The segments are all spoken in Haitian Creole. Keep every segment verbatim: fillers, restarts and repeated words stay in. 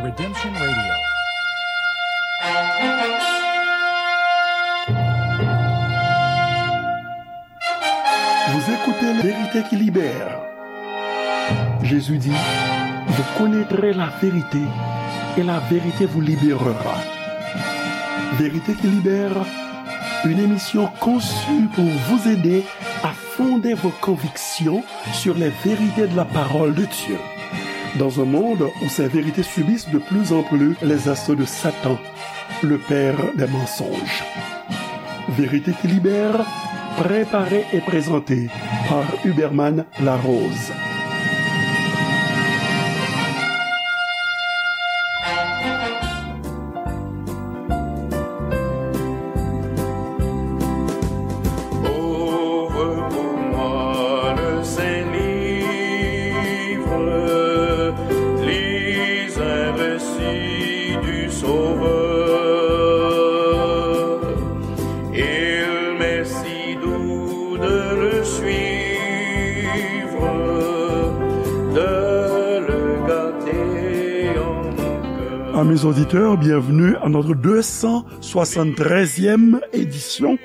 Redemption Radio. Vous écoutez Vérité qui libère. Jésus dit, vous connaîtrez la vérité et la vérité vous libérera. Vérité qui libère, une émission conçue pour vous aider à fonder vos convictions sur les vérités de la parole de Dieu. Dans un monde où ces vérités subissent de plus en plus les assauts de Satan, le père des mensonges. Vérité qui libère, préparée et présentée par Huberman Larose. Ouvre pour moi le Saint-Livre, lis un récit du Sauveur. Il m'est si doux de le suivre, de le garder en mon cœur. Amis auditeurs, bienvenue à notre deux cent soixante-treizième édition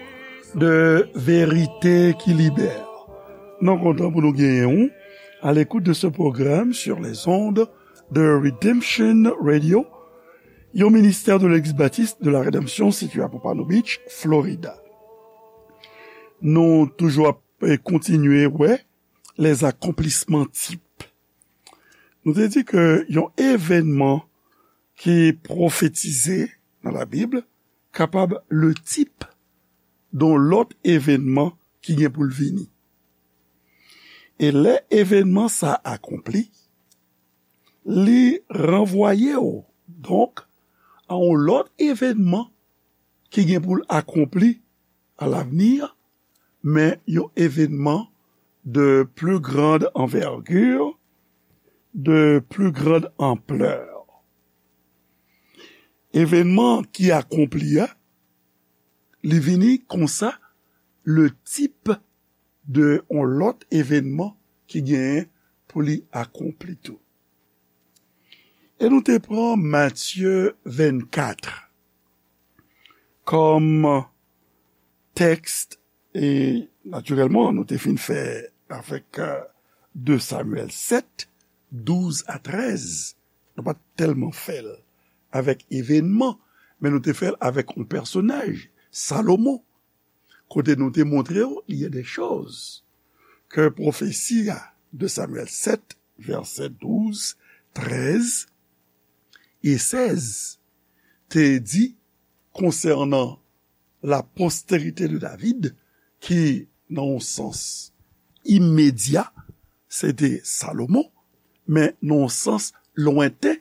de Vérité qui Libère. Nou kontan pou nou genyen w à l'écoute de ce programme sur les ondes de Redemption Radio, yon ministè de Legliz Batis de la Redanmsyon sitiye a Pompano Beach, Florida. Nou toujou ap, eh, kontinye wè les accomplissements types. Nou te di ke yon evènman ki pwofetize nan Labib kapab le type de yon lòt evènman ki gen pou l vini. E lè evènman sa a akonpli, li ranvwaye w, donk, a yon lòt evènman ki gen pou l akonpli à l'avenir, men yon evènman de plus grande envergure, de plus grande ampleur. Evènman ki akonpli a, li vini konsa le type de yon lòt evènman ki genyen pou li akonpli tou. E nou te pran Matye vennkat kòm tèks, e natirèlman, nou te fin fè avèk, euh, de Samyèl sèt, douz a trèz. Nou pa t tèlman fè l avèk evènman, men nou te fè l avèk yon pèsonaj, Salomon, kote nou te montre w, il y a des choses ke pwofesi a de Samyèl sèt, vèsè douz, trèz e sèz te di konsènan la postérité de David, ki, nan yon sans imedya, se te Salomon, men nan yon sans lwenten,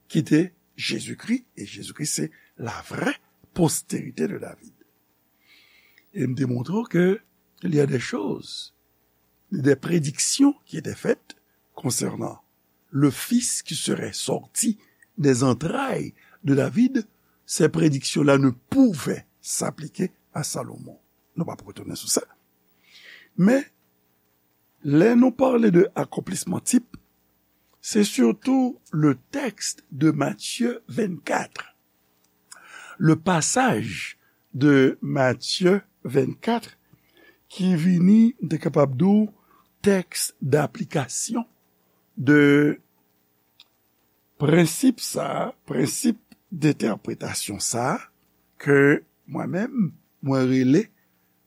ki te Jezikri, e Jezikri se la vraie postérité de David. E m te montre w ke il y a des choses, des prédictions qui étaient faites concernant le fils qui serait sorti des entrailles de David. Ces prédictions-là ne pouvaient s'appliquer à Salomon. Nou p ap retounen sou sa. Men, lè nou pale de akonplisman tip, se sitou le tèks de Matye vennkat, le pasaj de Matye vennkat ki vini, m te kapab di w, tèks daplikasyon de prensip sa a, prensip dentèpretasyon sa a, ke mwen menm, mwen rele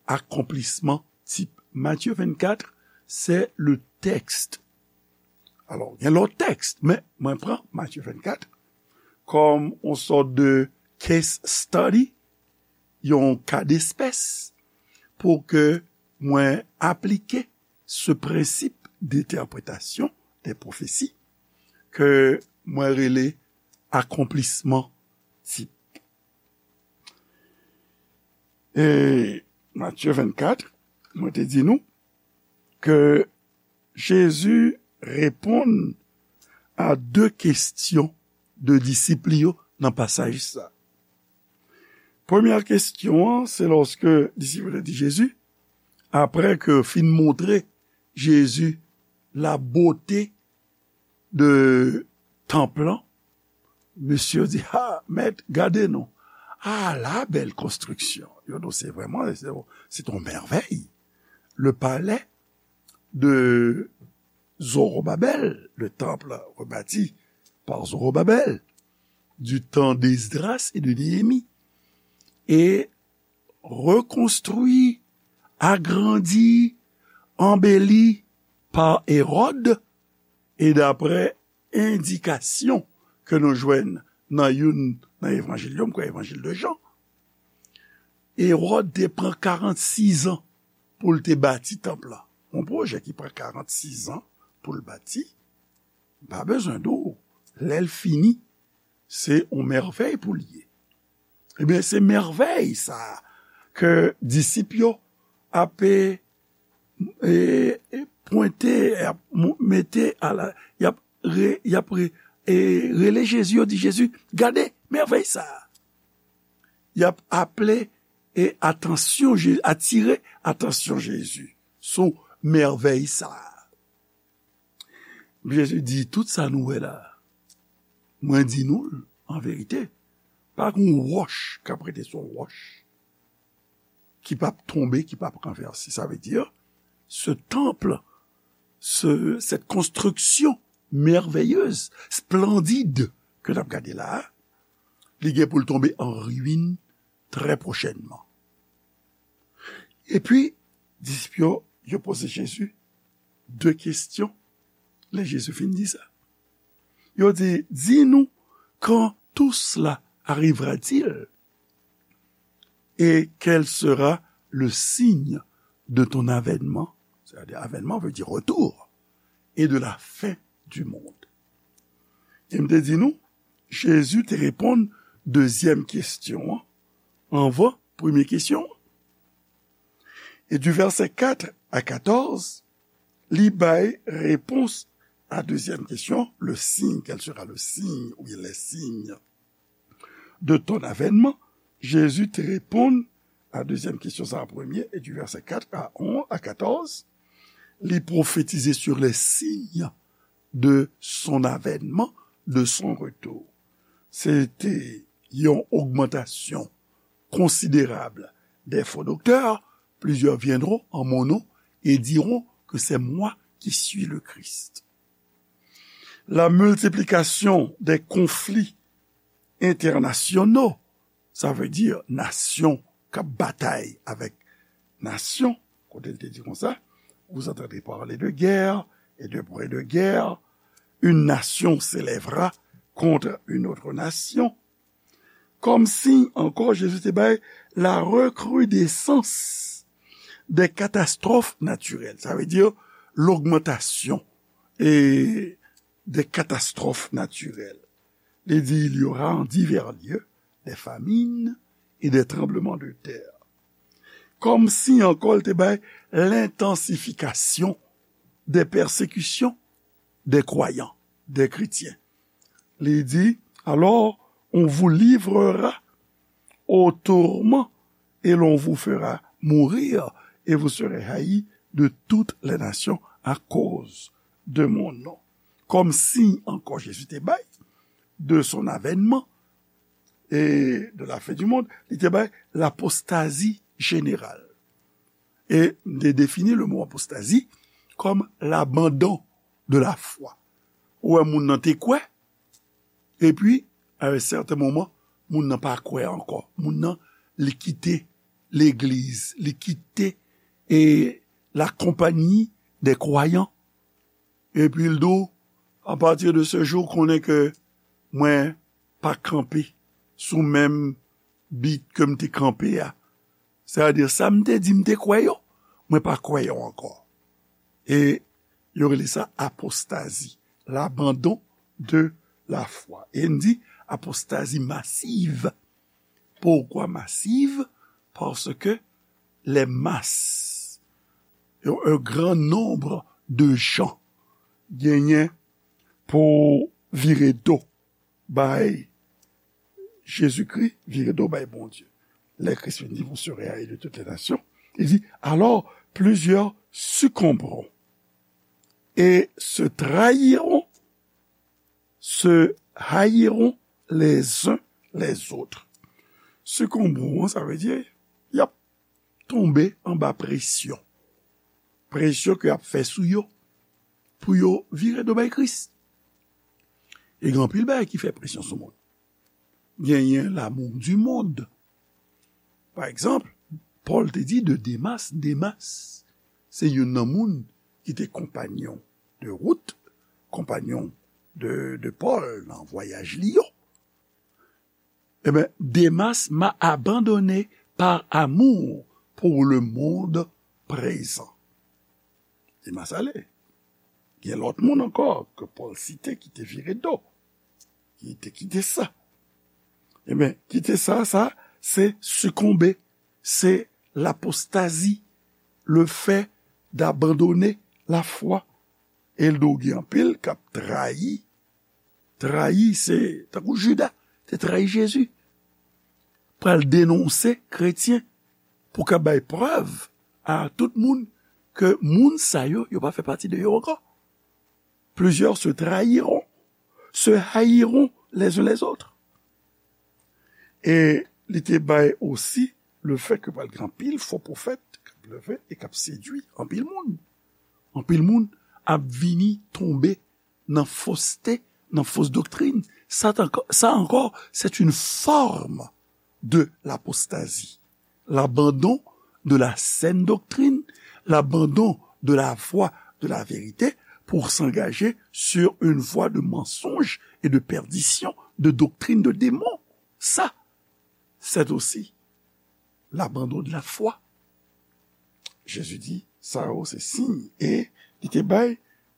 akonplisman tip. Matye vennkat, c'est le texte. Alò, gen lòt tèks, men mwen pran Matye vennkat kòm yon sòt de case study, yon ka despès, pou ke mwen aplike ce principe d'interprétation des prophéties ke mwen rele akonplisman tip. E Matye vennkat, mwen te di nou ke Jezi reponn a de kesyon de disip li yo nan pasaj sa. Premyè kesyon an, se lòske disip yo te di Jezi, apre ke yo fin montre Jezi la bote de tanp lan, Mesye yo di, ha, mèt, gade non. Ala bèl konstriksyon. Yo di, se vrèman, se, se yon mèvèy. Le palais de Zorobabel, le temple rebâti par Zorobabel, du temps d'Esdras et de Néhémie, et reconstruit, agrandi, embelli par Hérode, et d'après endikasyon ke nou jwenn nan youn nan evanjil yo, m kwè evanjil de Jan, Ewòd te pran karannsis an pou l te bati tanp lan. Yon pwojè ki pran karannsis an pou l bati, m pa bezwen di w, lè l fini, se yon mèvèy pou l ye. Ebyen, se mèvèy sa a ke disip yo ap, e, e, e, pwente, ap mou-, mete a la, y ap re-, y ap re-, e, rele Jezi, yo di, Jezi, gade mèvèy sa a. Y ap aple, e, atansyon Je-, atire atansyon Jezi sou mèvèy sa a. Jezi di, tout sa nou wè la, mwen di nou l an verite, pa gen yon wòch k ap rete sou yon wòch ki p ap tonbe, ki p ap ranvèse. Sa vle di, ce temple, ce, cette construction merveilleuse, splendide ke n ap gade la a, li gen pou l tonbe an ruin trè pwochènman. Epi, disip yo, yo poze Jezi de kesyon. Lè Jezi fin di sa, yo di, dis-nous quand tout cela arrivera-t-il et quel sera le signe de ton avènement, c'est-à-dire avènement veut dire retour, et de la fin du monde. E m te di nou, Jezi te reponn dezyèm kesyon an anvan premye kesyon an. E di vèsè kat a katòz, li bay repons a dezyèm kesyon, le signe, quel sera le signe, ou bien les signes de ton avènement, Jezi te reponn a dezyèm kesyon sa a premye, e di vèsè kat a onz, a katòz, li pwofetize sur les signes de son avènement, de son retour. Se te yon ogmantasyon konsiderab des faux docteurs, plusieurs viendront en mon nom et diront que c'est moi qui suis le Christ. La multiplication des conflits internationaux, sa vle di nasyon k ap batay avèk nasyon, kote l te di konsa, vous entendrez parler de guerre et de bruit de guerre, une nation s'élèvera contre une autre nation. Kòm siy ankò, Jezi te bay la recrudescence des catastrophes naturelles. Sa vle di logmantasyon e des catastrophes naturelles. Li di, il y aura en divers lieux des famines et des tremblements de terre. Kòm siy ankò, li te bay l'intensification des persécutions des croyants, des chrétiens. Li di, alors, on vous livrera au tourment et l'on vous fera mourir et vous serez haïs de toutes les nations à cause de mon nom. Kòm siy ankò Jezi te bay de son avènman e de la fin du monde, li te bay l'apostasie générale. E m te defini le mo apostazi kòm l'abandon de la foi. Ou wè moun nan te kwè, epi, à un certain moment, moun nan pa kwè ankò. Moun nan, li kite legliz, li kite, e, la compagnie des croyants. Epi l di w, à partir de ce jour, konnen ke mwen pa kanpe sou menm bit ke m te kanpe a. Sètadi, sa m te di m te kwè yo, mwen pa kwè yo ankò. E yo rele sa apostazi, l'abandon de la foi. E n di apostazi masiv. Pourquoi massive? Parce que les masses, un grand nombre de gens genyen pou vire do bay Jezikri, vire do bay Bondye. Lè Kris vin di, vous serez haïs de toutes les nations, il dit, alors plusieurs succomberont et se trahiront, se haïront les uns les autres. Sikonbe an, sa vle di, y ap tonbe anba presyon. Presyon ke y ap fè sou yo pou yo vire do bay Kris. E gen anpil bagay ki fè presyon sou moun. Genyen l'amour du monde. Pa egzanp, Pòl te di de Demas, Demas, se youn nan moun ki te konpanyon de wout, konpanyon de, de Pòl nan vwayaj li yo. Ebyen, Demas m'a abandonné par amour pour le monde présent. Demas ale. Gen lòt moun ankò ke Pòl site ki te vire do, ki te kite sa. Ebyen, kite sa, sa, se sikonbe, se l'apostasie, le fait d'abandonner la foi. E l do gen anpil k ap trayi. Trayi, se tankou Jida te trayi Jezi. Pral denonse kretyen pou ka bay prèv a tout moun ke moun sa yo, yo pa fè pati de yo ankò. Plusieurs se trahiront, se haïront les uns les autres. E li te bay osi le fait que pral gen anpil fo pwofèt k ap leve e k ap sedui anpil moun. Anpil moun ap vini tonbe nan foste, nan fos doktrin. Sa t ankò, sa ankò, c'est une forme de l'apostasie. L'abandon de la saine doctrine, l'abandon de la voie de la vérité pour s'engager sur une voie de mensonge et de perdition, de doctrine de démon. Sa, c'est aussi l'abandon de la foi. Jezi di, sa yo se siy, e li te bay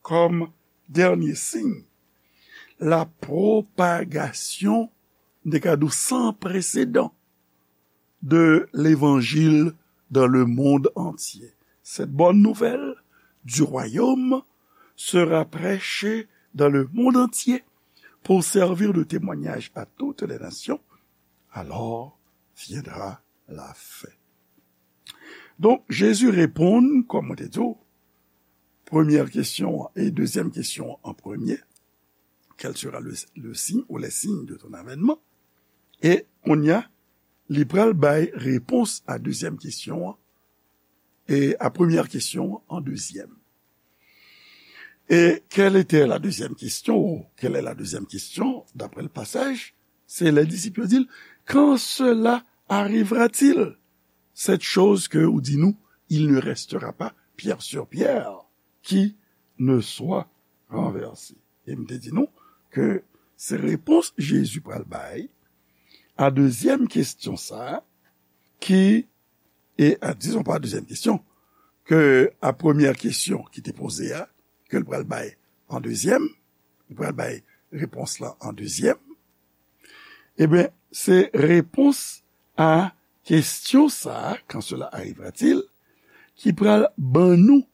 kòm dènye siy, la propagation, m te ka di w, sans précédent de l'évangile dans le monde entier. Cette bonne nouvelle du royaume sera prêchée dans le monde entier pour servir de témoignage à toutes les nations. Alors viendra la fin. Donk, Jezi reponn, kòm mwen te di w, premyè kesyon an e dezyèm kesyon an an premye, quel sera le, le signe ou les signes de ton avènement? E kounye a, li pral bay repons a dezyèm kesyon an, e a premyè kesyon an an dezyèm. Et quelle était la deuxième question, ou quelle est la deuxième question, d'après le passage? Se lè disip yo di l, quand cela arrivera-t-il, cette chose que ou di nou, il ne restera pas pierre sur pierre qui ne soit renversée? E m te di nou ke se repons Jezi pral bay a dezyèm kesyon sa a, ki, e a, dizon pa dezyèm kesyon, ke a premyè kesyon ki te poze a, ke l pral bay an dezyèm, li pral bay repons lan an dezyèm, ebyen, se repons a kesyon sa a, quand cela arrivera-t-il, ki pral ban nou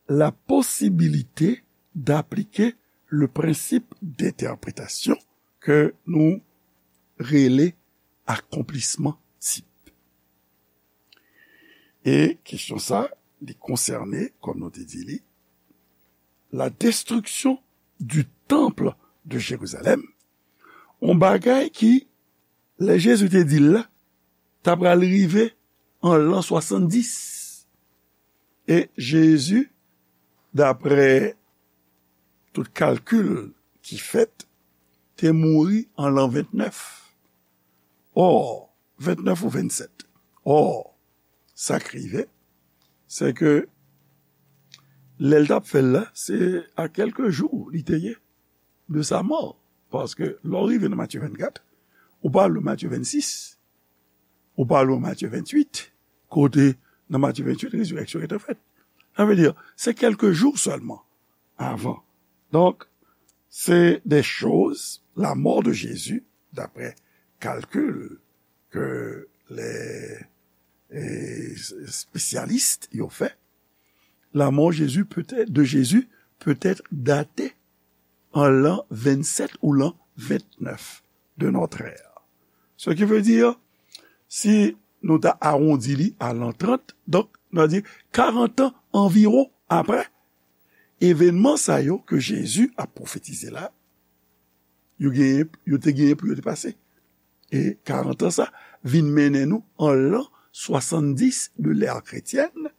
la possibilité d'appliquer le principe d'interprétation ke nou rele akonplisman tip. E kesyon sa, li konsène, kòm nou te di li, la destruction du temple de Jérusalem, yon bagay ki, lè Jezi te di l la, ta pral rive an lan swasanndis. E Jezi, daprè tout kalkil ki fèt, te mouri an lan ventnèf. Ò, ventnèf ou vennsèt. Ò, sa k rive, se ke lè l t ap fè l la, se a kèlke jou li te ye de sa mò. Paske lè w rive nan Matye vennkat, ou pa lwen Matye vennsis, ou pa lwen Matye venntuit, kote nan Matye venntuit, rezirèksyon gentan fèt. Sa vle di, se kèlke jou sèlman avan. Donk, se de choz, la mort de Jésus, d'après calcul que les, eh, spécialistes yo fè, la mort Jésus peut être, de Jésus peut être datée an lan vennsèt ou lan ventnèf de notre ère. Ce qui veut dire, si nou ta awondi li a lan trant, donk, nou a di karant an anviwon apre evènman sa yo ke Jezi ap pwofetize la, yo genyen, yo te genyen pou yo te pase. E karant an sa vin mennen nou an lan swasanndis de l'ère chrétienne,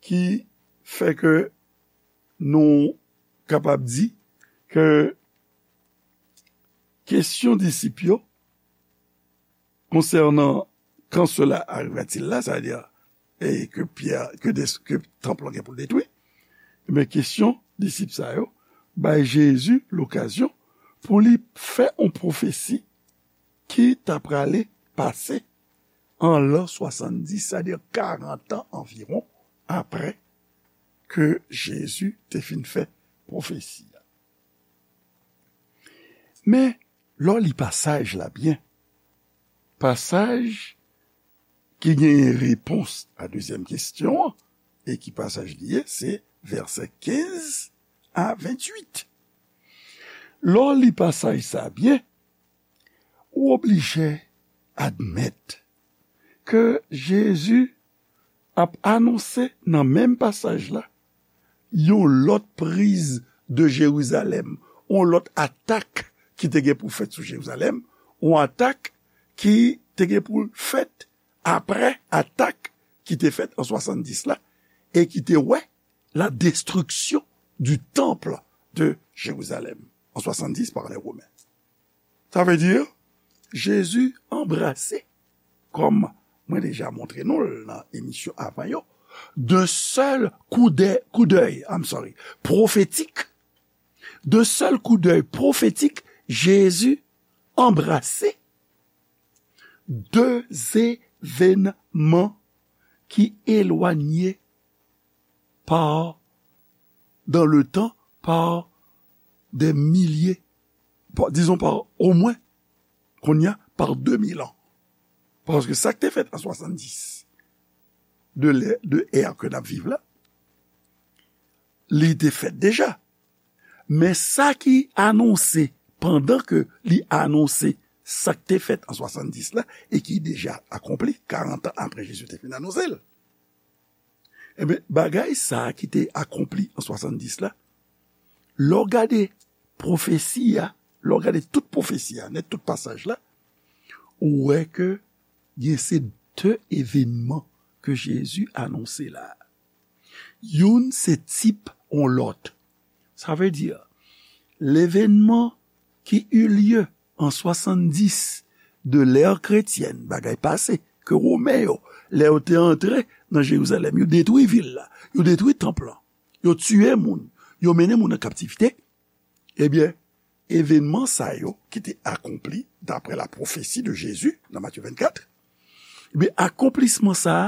ki fè ke nou kapab di ke kesyon disip yo konsènan quand cela arriva-t-il là, sa vle di, e ke Pyè, ke, ke tanp lan gen pou l detwi, men kesyon disip sa yo bay Jezi lokazyon pou li fè yon pwofesi ki ta prale pase an lan swasanndis, sa vle di karant an anviwon apre ke Jezi te fin fè pwofesi a. Men, lè w li pasaj la byen, pasaj ki genyen repons a dezyèm kesyon an, e ki pasaj li ye, se vèsè kenz a venntuit. Lè w li pasaj sa byen, ou oblije admèt ke Jezi ap anonse nan menm pasaj la yon lòt priz de Jerizalèm, yon lòt atak ki te gen pou fèt sou Jerizalèm, yon atak ki te gen pou fèt apre atak ki te fèt an swasanndis la, e ki te wè la destruction du temple de Jérusalem en soixante-dix par les Romains. Sa vle di, Jezi anbrase, kòm mwen deja montre nou l nan emisyon avan yo, de sèl koudè, koudèy, I'm sorry, pwofetik, de sèl koudèy pwofetik, Jezi anbrase de evènman ki elwanye par, dans le temps, par des milliers, par, disons par au moins, kounye a, par de mil an. Paske sa k te fèt an swasanndis, de lè, de è ke n ap viv la, li te fèt deja. Men sa ki anonse, pandan ke li anonse sa k te fèt an swasanndis la, e ki deja akonpli, karant an apre Jezi te fin anonse l. Ebyen, bagay sa a ki te akonpli an swasanndis la, lè w gade pwofesi a, lè w gade tout pwofesi a, nèt tout pasaj la, ou wè ke gen se de evènman ke Jezi anonse la. Youn se tip yon lòt. Sa vle di, levènman ki eut lieu an swasanndis de l'ère chrétienne, bagay pase, ke Women yo, lè yo te antre nan Jerizalèm, yo detwi vil la, yo detwi tanp lan, yo tiye moun, yo mennen moun an kaptivite, ebyen, evènman sa yo ki te akonpli daprè la pwofesi de Jezi nan Matye vennkat, ebyen, akonplisman sa a,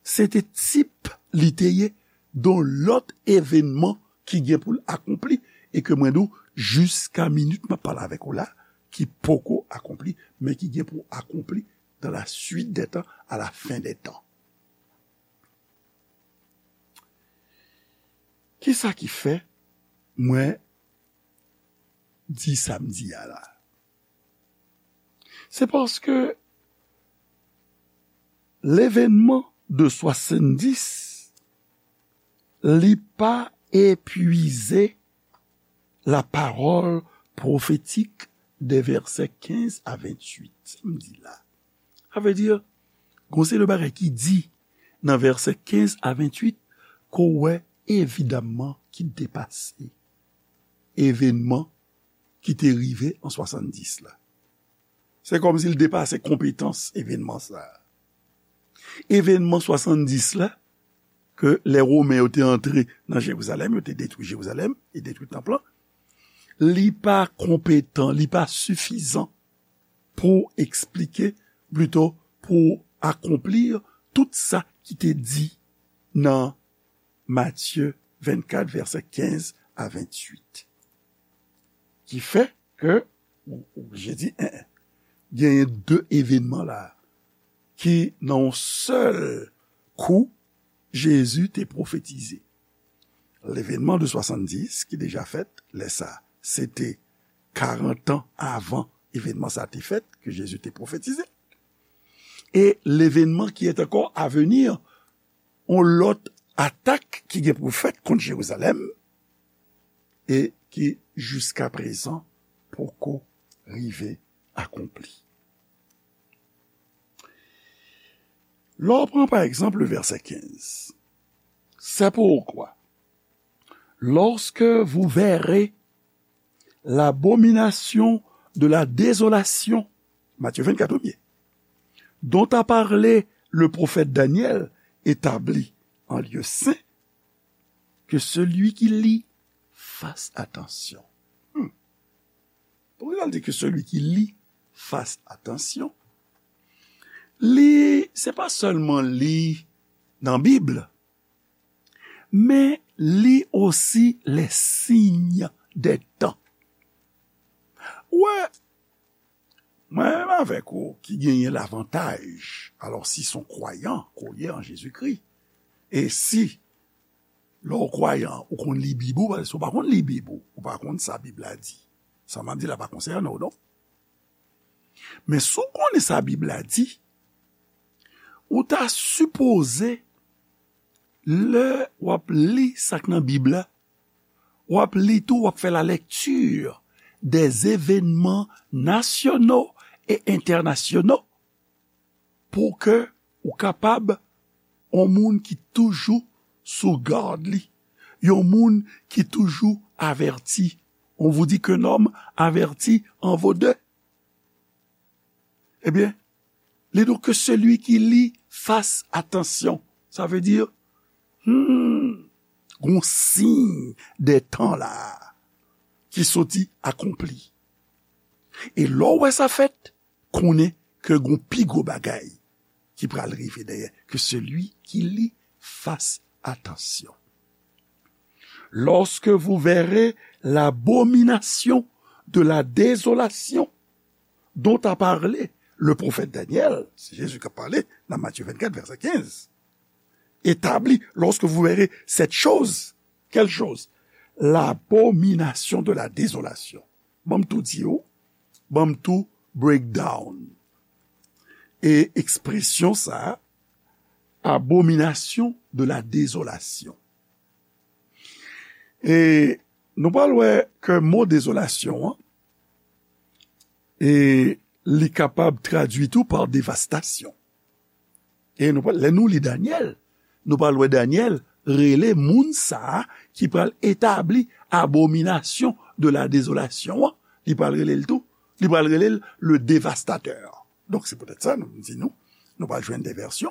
se te tip li te ye don lòt evènman ki gen pou l akonpli, e ke mwen di w, jiska minit m ap pale avèk ou la, ki poko akonpli, men ki gen pou akonpli dans la suite des temps, à la fin des temps. Kisa ki fè mwen di sa m di a la? Se paske levènman de swasanndis, li pa epwize la parole prophétique des versets quinze à vingt-huit. Sa m di la. Sa vle di, gon se de bagay ki di nan vèsè kenz a venntuit ke w wè evidamman ki depase evènman ki te rive an swasanndis la. Se kòmsi l depase konpetans evènman sa a. Evènman swasanndis la, ke lè Women yo te antre nan Jerizalèm, yo te detwi Jerizalèm e detwi tanp lan, li pa konpetan, li pa sifizan pou eksplike, plito pou akonpli tout sa ki te di nan Matye vennkat, vèsè kenz a venntuit. Ki fè ke, ou, ou oblije di, en, en, genyen de evènman la ki nan yon sèl kou Jezi te pwofetize. Levènman de swasanndis ki deja fèt, lè sa, se te karant an avan evènman sa te fèt, ke Jezi te pwofetize. E levènman ki est encore à venir, yon lòt atak ki gen pou fèt kont Jerizalèm, e ki jiska prezan poko rive akonpli. Lè w pran, pa egzanp, le vèsè kenz, c'est pourquoi, lorsque vous verrez l'abomination de la désolation, Matthieu vingt-quatre, premye, dont a parlé le prophète Daniel établie en lieu saint, que celui qui lit fasse attention. Hmm. Poukisa l di que celui qui lit fasse attention? Li, se pa sèlman li nan Bib, men li osi les signes des temps. Wè, mwen menm avèk ou ki genyen lavantaj, alò si se yon kwayan ke w ye an Jezikri, e si lè w kwayan, ou konn li Bib ou, paske si w pa konn li Bib ou, ou pa konn sa Bib la di. Sa m ap di la pa konsène w, non. Men si w konnen sa Bib la di, ou ta sipoze, lè w ap li sa k nan Bib la, w ap li tou, w ap fè la lecture des événements nationaux et internationaux pou ke ou kapab yon moun ki toujou sou gad li, yon moun ki toujou avèti. On vous dit qu'un homme averti en vaut deux. Ebyen, li di w que celui qui lit fasse attention. Sa vle di, hmm, gon siy dè tan la ki soti akonpli. E lè w wè sa fèt, konnen ke gon pi gwo bagay ki pral rive dèyè, que celui qui lit fasse attention. Lorsque vous verrez l'abomination de la désolation dont a parlé le prophète Daniel, se Jezi k ap pale nan Matye vennkat, vèsè kenz. Établie, lorsque vous verrez cette chose, quelle chose? L'abomination de la désolation. Ban m tou di w, ban m tou break down. E ekspresyon sa a, abomination de la désolation. E nou pral wè ke mo dezolasyon an, e li kapab tradui tou pa devastasyon. E nou pral, lè nou li Danyèl, nou pral wè Danyèl rele moun sa a ki pral etabli abominasyon de la dezolasyon an, li pral rele l tou, li pral rele l le dévastateur. Donk, se poutèt sa, nou di nou, nou pral jwenn de vèsyon,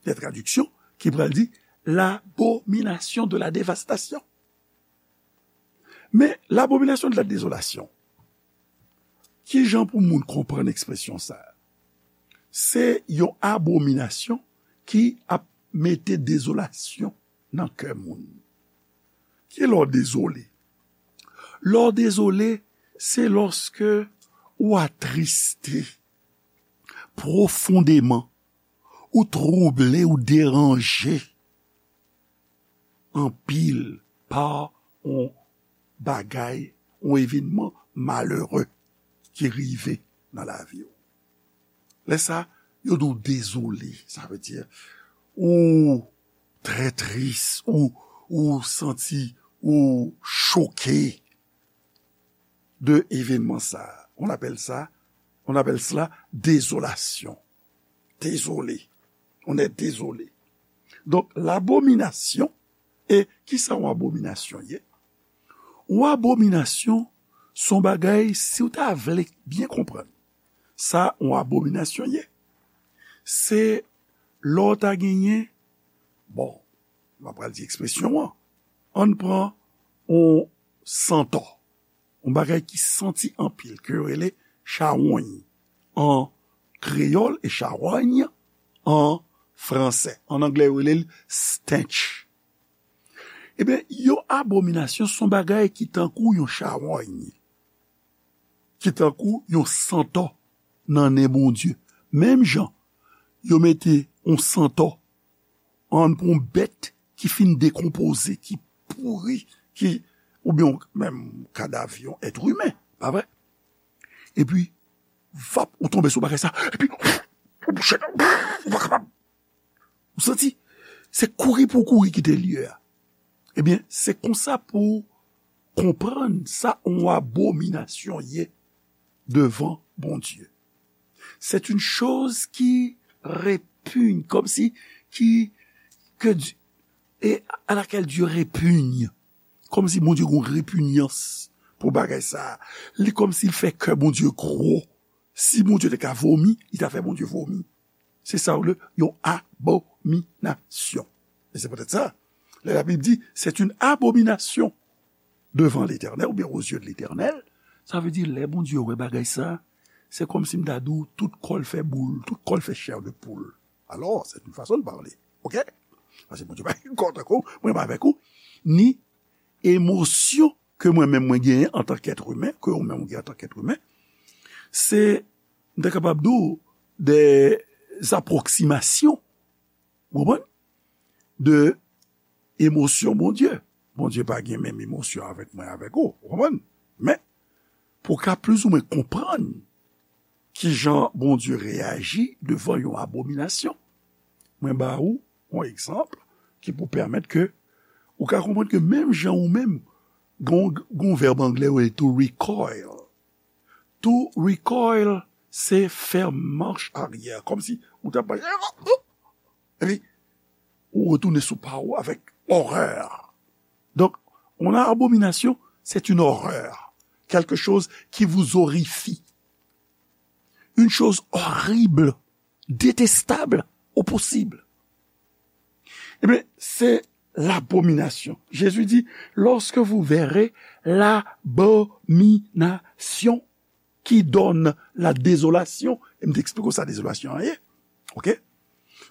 de tradiksyon, ki pral di l'abomination de la dévastation. Men, l'abomination de la désolation, ki jan pou moun konprann ekspresyon sa a? Se yon abominasyon ki ap mete dezolasyon nan kè moun. Ki lè w dezole? Lè w dezole, se lòske ou atriste pwofondeman, ou twouble, ou deranje anpil pa yon bagay, yon evènman malere ki rive nan lavi w. Lè sa, yo di w dezole, sa vle di ou trè tris, ou, ou santi ou choke de evènman sa. On appelle ça, on appelle cela désolation. Désolé. On est désolé. Donk, labominasyon, e kisa yon abominasyon ye? Yon abominasyon, se yon bagay, si w ta vle byen konprann sa yon abominasyon ye, se lè w ta genyen, bon, m ap pral di ekspresyon an, ann pran yon santò, yon bagay ki santi anpil, ke yo rele chawony an kreyòl e chawony an fransè. An anglè, yo rele l stench. Ebyen, yon abominasyon se yon bagay ki tankou yon chawony, ki tankou yon santò nan nen Bondye. Menm jan yo mete yon santò ann pou yon bèt ki fin dekonpoze, ki pouri, ki, oubyen menm kadav yon èt imen, pa vre? Epi, vap, ou tonbe sou bagay sa, epi, ou bouche, ou pa kapab. Ou santi? Se kouri pou w kouri kite lye a. Ebyen, se konsa pou konprann sa yon abominasyon ye devan Bondye. C'est une chose qui répugne, comme si, qui, que Dieu, et à laquelle Dieu répugne. Kòmsi Bondye gen repinyans pou bagay sa. Li kòmsi l fè kè Bondye gwo. Si Bondye te ka vomi, li ta fè Bondye vomi. Se sa w le yon abominasyon. E se poutèt sa, lè Labib di, c'est une abomination devant l'Éternel, oubyen aux yeux de l'Éternel, sa vle di lè Bondye wè bagay sa, se kòmsi m ta di w tout kò l fè boul, tout kò l fè chair de poule. Alors, c'est une façon de parler. OK? Paske Bondye pa gen kò tankou mwen avèk ou, ni emosyon ke mwen menm mwen genyen antank èt imen, ke ou menm ou genyen antank èt imen. Se, m ta kapab di w, des approximations, ou konprann? De emosyon Bondye. Bondye pa gen menm emosyon avèk mwen, avèk ou, ou konprann? Men, pou w ka plizoumwen konprann kijan Bondye reyaji devan yon abominasyon, mwen ba ou yon egzanp ki pou pèmèt ke ou ka konprann ke menm jan ou menm, gon, gon vèb anglè yo rele to recoil. To recoil, se fè mach aryè, kòmsi ou t ap mache, epi ou retounen sou pa ou avèk orè. Donc, une abomination, c'est une horreur, quelque chose qui vous horrifie, une chose horrible, détestable au possible. Eh bien, c'est l'abomination. Jésus dit, lorsque vous verrez l'abomination qui donne la désolation, e m te eksplike w sa dezolasyon an ye, OK?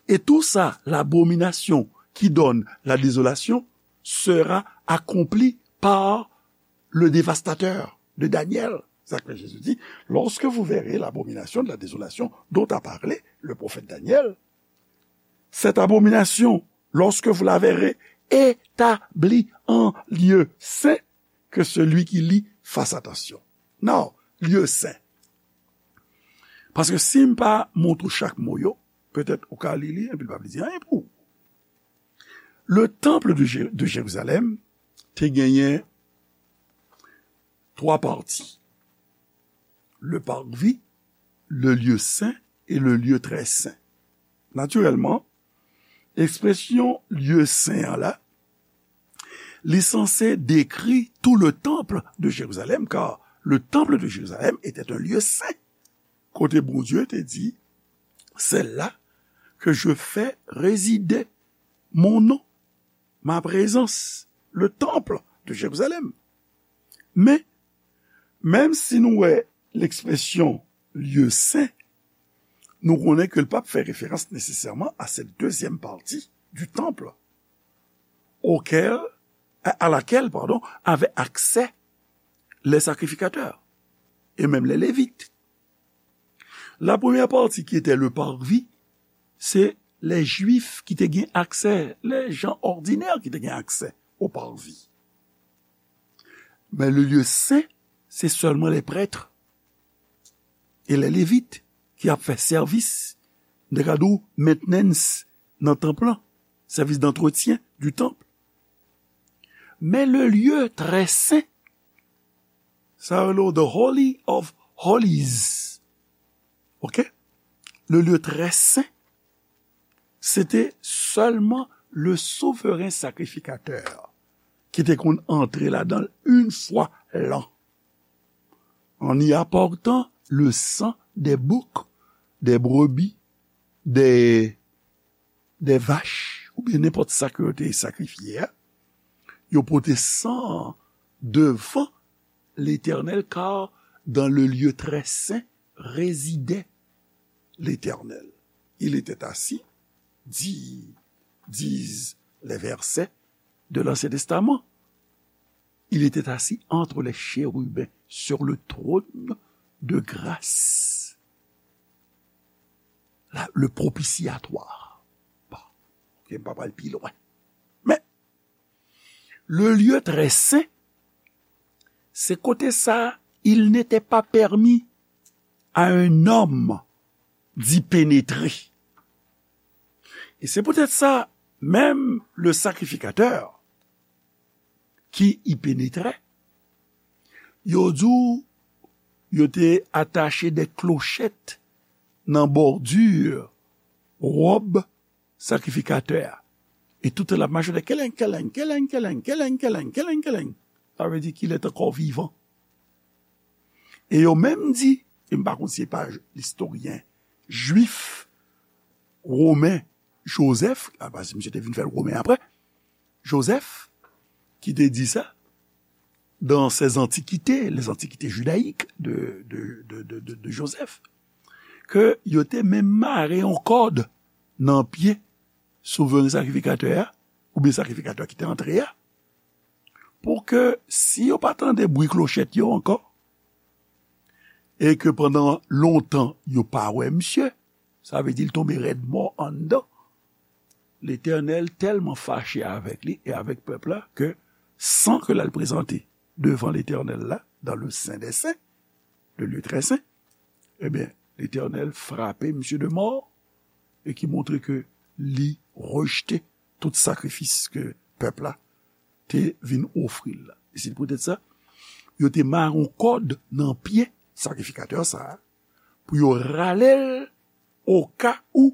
Et tout ça, l'abomination qui donne la désolation, sera accompli par le dévastateur de Daniel. C'est ça que Jésus dit, lorsque vous verrez l'abomination de la désolation dont a parlé le prophète Daniel, cette abomination, lorsque vous la verrez établie en lieu saint, que celui qui lit fasse attention. Now, lieu saint. Paske si m pa montre w chak mo yo, petèt ou ka li li, epi l p ap di anyen pou ou. Le temple de, Jé- de Jérusalem te genyen twa pati. Le parvis, le lieu saint et le lieu très saint. Natirèlman, ekspresyon lieu saint an la, li sanse dekri tout le temple de Jérusalem, car le temple de Jérusalem était un lieu saint. Kote Bondye te di, c'est là que je fais résider mon nom, ma présence, le temple de Jérusalem. Men, menm si nou wè lekspresyon lieu saint, nou konnen ke l p ap fè referans nesesèman a cette deuxième partie du temple, auquel, à, à laquelle, pardon, avaient accès les sacrificateurs et même les Lévites. La première partie qui était le parvis, c'est les Juifs ki te gen aksè, les gens ordinaires ki te gen aksè au parvis. Men le lieu saint, se sèlman les prêtres et les Lévites ki ap fè sèvis, m te ka di w, maintenance nan tanp lan, service d'entretien du temple. Men le lieu très saint, sa rele w the holy of holies. OK? Le lieu très saint, se te sèlman le souverain sacrificateur ki te konn antre ladan l une fois l'an, en y apportant le sang des boucs, des brebis, des, des vaches, oubyen nenpòt sa ke yo te sakrifye a. Yo pote san an devan Letènèl, car dans le lieu très saint résidait l'Éternel. Il était assis, di-, disent les versets de l'Ancien Testament. Il était assis entre les chérubins sur le trône de grâce. La, le propitiatoire. Bon, OK, m pa pral pi lwen. Men, le lieu très saint, se kote sa, il n'était pas permis à un homme d'y pénétrer. Et c'est peut-être ça, même le sacrificateur qui y pénétrait, yo di w yo te atache de klochèt nan bòdi wòb sakrifikatè a. E tout tan l ap mache, de keleng, keleng, keleng, keleng, keleng, keleng, keleng, keleng. Sa vle di ki lè t ankò vivan. E yo menm di, e m pa konn si se pa istoryen jwif, women, Joseph, a, paske misye te vin fè l women apre, Joseph, ki te di sa, dans ses antiquités, les antiquités judaïques de, de, de, de, de, de Joseph, ke yo te menm mare yon kòd nan pye souveren sakrifikatè a, oubyen sakrifikatè a ki te antre a, pou ke si yo pa tande bri klochèt yo ankò, e ke pandan lontan yo pa wè misye, sa vle di l tonbe rèd mò anndan. Letènèl tèlman fache avèk li e avèk pèp la ke san ke l al prezante devan Letènèl la, dans le Saint des Saints, le lieu très saint, ebyen, Letènèl frape misye de mò e ki montre ke li rejte tout sakrifis ke pèp la te vin ofri l la. E se poutèt sa, yo te mare yon kòd nan pye sakrifikatè sa a, pou yo rale l oka ou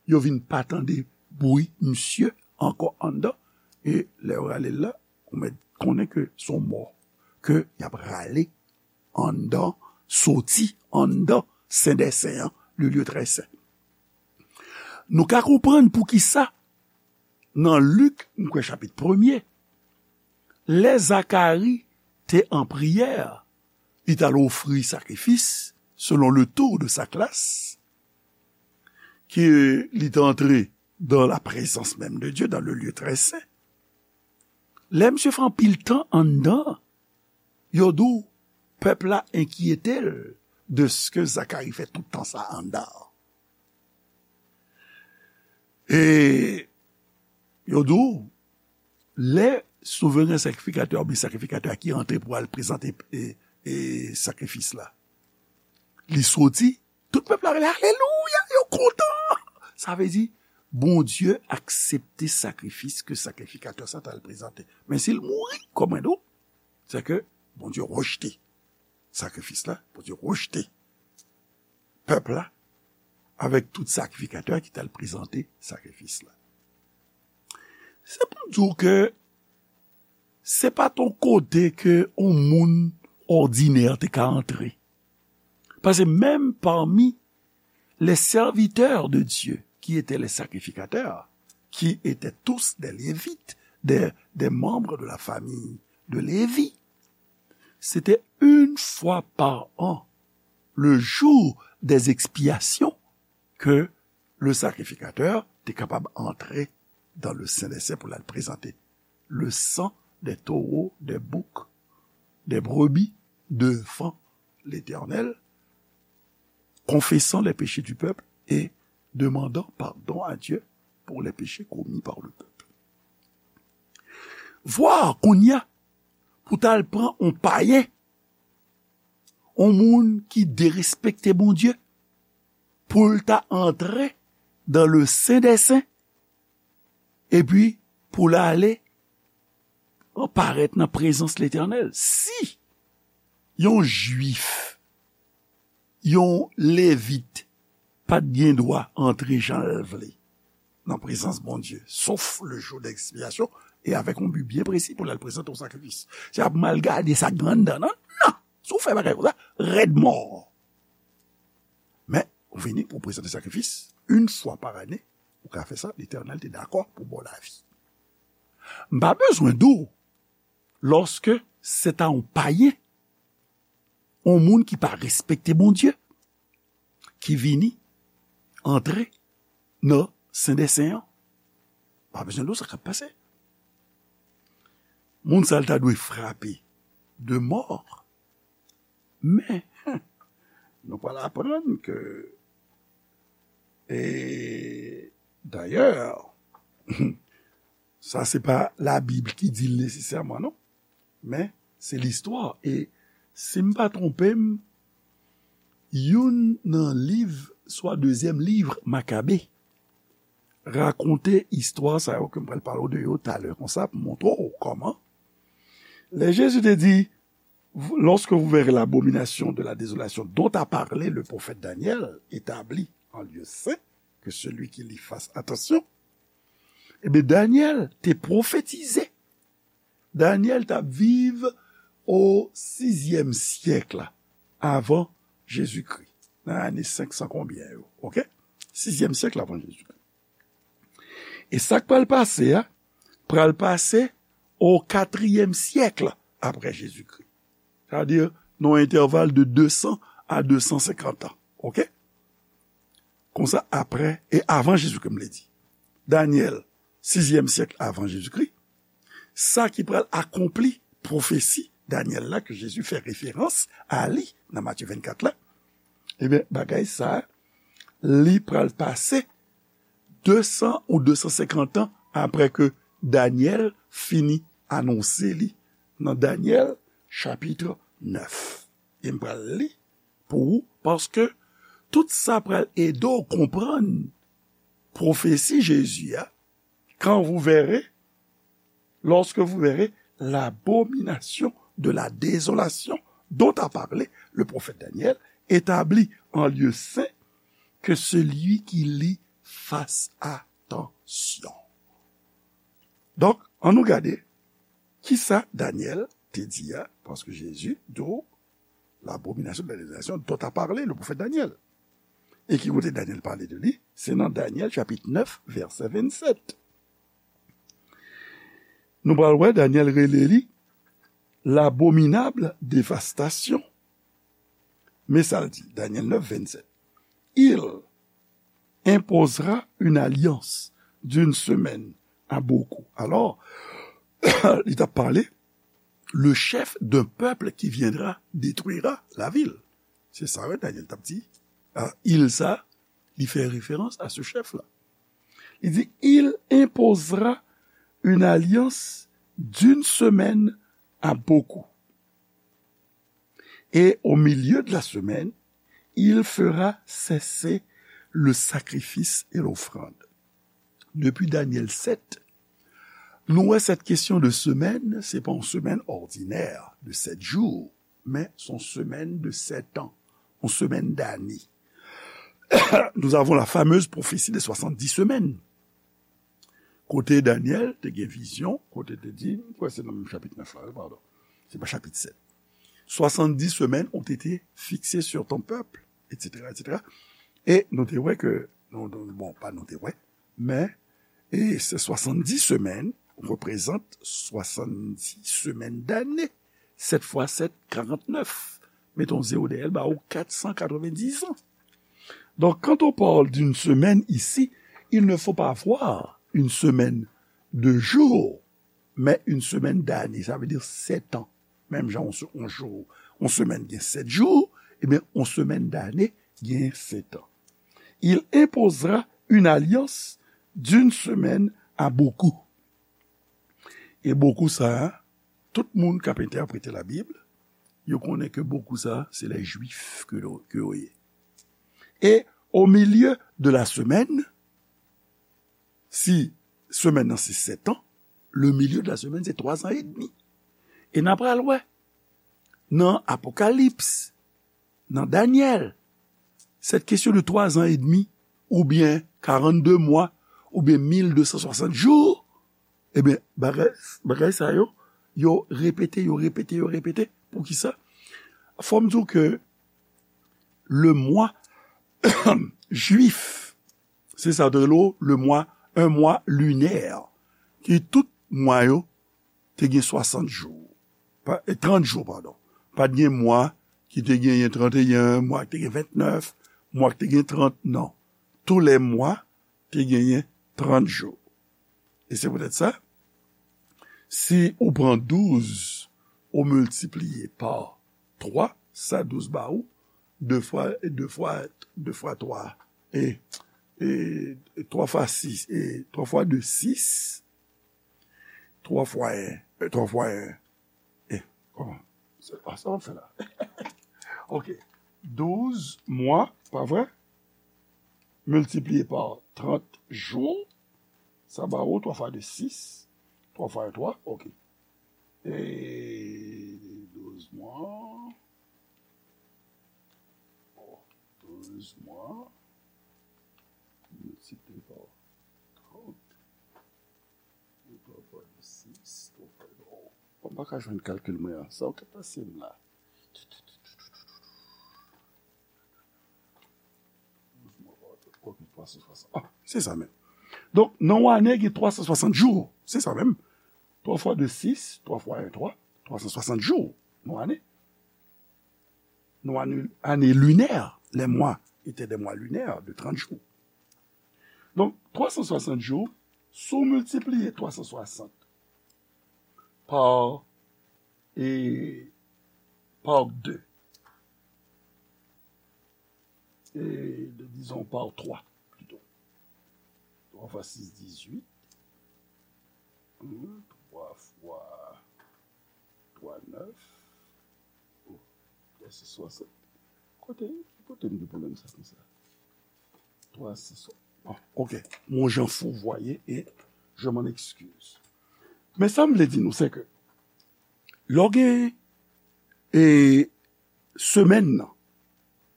yo vin pa tande bri misye ankò anndan. E lè yo rale l la, ou mèt konnen ke se yon mò ke y ap rale anndan, soti anndan Sen dè Sen an, le lieu très saint. Nou ka konprann poukisa nan Lik, m kwè chapit premye, lè Zakari te an priyè, li t al ofri sakrifis selon le tour de sa classe, ke li te antre dans la présence même de Dieu, dans le lieu très saint. Lè misye fè anpil tan anndan, yo di w, pèp la enkyete l de ce que Zakari fè tout tan sa anndan. E yo di w, lè souveren sakrifikatè oubyen sakrifikatè a ki antre pou al prezante e, e sakrifis la, li soti, tout pèp la rele, alelouya, yo kontan. Sa vle di, Bondye aksepte sakrifis ke sakrifikatè sa t al prezante. Men si l mouri, kòm mwen di w, se ke Bondye rejte sakrifis la, Bondye rejte pèp la avèk tout sakrifikatè ki t al prezante sakrifis la. Se pou di w ke se pa t yon kote ke yon moun òdinè te ka antre. Paske menm pami les serviteurs de Dieu, qui étaient les sacrificateurs, qui étaient tous des Lévites, des, des membres de la famille de Lévi, c'était une fois par an, le jour des expiations, que le sacrificateur te kapab antre dans le Saint des Saints pou l al prezante le sang des taureaux, des boucs, des brebis devant l'Éternel, confessant les péchés du peuple et demandant pardon à Dieu pour les péchés commis par le peuple. Vwa kounye a, pou t al pran yon payen, yon moun ki derespekte Bondye, pou l ta antre dans le Saint des Saints, epi pou l ale parèt nan prezans Letènèl. Si yon Jwif, yon Levit, pa t gen dwa antre jan l vle nan prezans Bondye, sof le jou de ekspyasyon, e avèk yon bi byen presi pou l al prezante yon sakrifis. Se ap mal gade sa k gen anndan, non, non. Si w fè bagay konsa, rèd mò. Men, ou vini pou w prezante sakrifis, yon fwa pa ane, ou ka fè sa, Letènèl te dakò pou ba w lavi. M pa bezwen di w, lòske se ta yon payen, yon moun ki pa respekte Bondye, ki vini antre nan Sen dè Sen an, pa bezwen di w sa k ap pase. Moun sa a ta dwe frape de mò. Men, nou pral aprann ke, e, dayè, sa se pa Labib ki di l nesesèman, non. Men, se listwa. E si m pa twonpe m, youn nan liv, swa dezyèm liv Makabe, rakonte istwa sa yo ke m pral pale w de yo talè konsa pou montre w kòman. Lè Jezi te di, vous- lorsque vous verrez l'abomination de la désolation dont a parlé le prophète Daniel établie en lieu saint, que celui qui lit fasse attention, eh bien, Daniel te pwofetize. Daniel t ap viv o sizyèm syèk la, avan Jezikri, nan ane senk san konbyen yo, oke? Sizyèm syèk la avan Jezikri. E sa k pral pase a, pral pase o katriyèm syèk la apre Jezikri. Sa vle di, nan yon entèval de de san a de san senkant an, oke? Konsa, apre e avan Jezikri, m vle di. Danyèl, sizyèm syèk avan Jezikri, sa ki pral akonpli pwofesi Danyèl la, ke Jezi fè referans a li nan Matye vennkat la, ebyen, bagay sa, li pral pase de san ou de san senkant an apre ke Danyèl fini anonse li nan Danyèl chapit nèf. E m pral li pou ou, paske tout sa pral ede w konprann pwofesi Jezi a, quand vous verrez, lorsque vous verrez l'abomination de la désolation dont a parlé le prophète Daniel, établie en lieu saint, que celui qui lit fasse attention. Donk, ann nou gade kisa Danyèl te di a, paske Jezi di w, l'abomination de la désolation dont a parlé le prophète Daniel. E ki kote Danyèl pale de li? Se nan Danyèl chapit nèf, vèsè vennsèt. Nou pral wè Danyèl rele li l'abominable dévastation. Men sa l di, Danyèl nèf, vennsèt. Il imposera une alliance d'une semaine à beaucoup. Alors, li t ap pale, le chef d'un peuple qui viendra détruira la ville. Se sa, wi, Danyèl t ap di. Ah, il sa, li fè referans a se chèf la. Li di, il imposera une alliance d'une semaine à beaucoup. Et au milieu de la semaine, il fera cesser le sacrifice et l'offrande. Depi Danyèl sèt, nou wè cette question de semaine, se pa yon semèn òdinè de sèt jou, men se yon semèn de sèt an, yon semèn dane. Nous avons la fameuse prophétie des soixante-dix semaines. Kote Danyèl te gen vizyon, kote te di, m kwè se nan menm chapit nèf la, wi, padon. Se pa chapit sèt. Soixante-dix semaines ont été fixées sur ton peuple, et cetera, et cetera. E nou te wè ke, nou, nou, bon, pa nou te wè, men, e se soixante-dix semaines représentent soixante-dix semaines d'année. Sèt fwa sèt, karantnèf. Mete yon zewo dèyè l, ba ou kat san katrevenndis an. Donc, quand on parle d'une semaine ici, il ne faut pas voir une semaine de jours, mais une semaine d'années. Ça veut dire sept ans. Menm jan yon se- yon jou, yon semèn gen sèt jou, ebyen, yon semèn dane gen sèt an. Il imposera une alliance d'une semaine à beaucoup. E beaucoup sa, tout moun k ap entèprete Labib, yo konnen ke beaucoup sa, se les Juifs ke yo, ke yo ye. Et au milieu de la semaine, si semèn nan se sèt an, le milieu de la semaine se twa zan edmi. E n a pral wè nan Apokalips, nan Danyèl, cette question de twa zan edmi, oubyen karannde mwa, oubyen mil de san swasant jou, ebyen, bagay, bagay sa yo, yo repete, yo repete, yo repete. Poukisa? Fò m di w ke le mwa jwif, se sa yo te rele le mwa, un mois lunaire, ki tout mwa yo te gen swasant jou. Pa, e, trant jou, padon. Pa t gen mwa ki te genyen tranteyen, mwa ki te gen ventnèf, mwa ki te gen trant, non. Tous les mois te genyen trant jou. E se poutèt sa, si ou pran douz, ou miltipliye pa twa, sa douz ba ou, de fwa, de fwa, de fwa twa, e, e twa fwa sis, e twa fwa de sis, twa fwa en, e twa fwa en, e, kòman? Sa, ah, sa w ap fè la? Ok. Douz mwa, pa vre? Miltipliye pa trant jou, sa ba ou twa fwa de sis, twa fwa en twa, ok. E douz mwa. mwa, douz mwa, miltipliye pa trant, twa fwa sis, twa fwa, oh, m pa ka jwenn kalkil mwen an. Sa w ka pase m la. Ok, twa san swasant. Ah, se sa menm. Donk, nan yon ane, gen twa san swasant jou. Se sa menm. Twa fwa de, sis, twa fwa en, twa, twa san swasant jou nan ane. Nan ane, ane linè, les mois étaient des mois lunaires de trente jours. Donk, twa san swasant jou, si w miltipliye twa san swasant pa, e, pa de, e, dizon, pa twa, plito. Twa fwa sis, dizuit. Twa fwa twa, nèf. Oh, twa sis swasant. Kote, kote m gen pwoblèm sa konsa? Twa sis swasant. Ah, ok. Mon jan fourvoyé et je m'en excuse. Men sa m vle di nou, se ke lè w gen, e, semèn nan,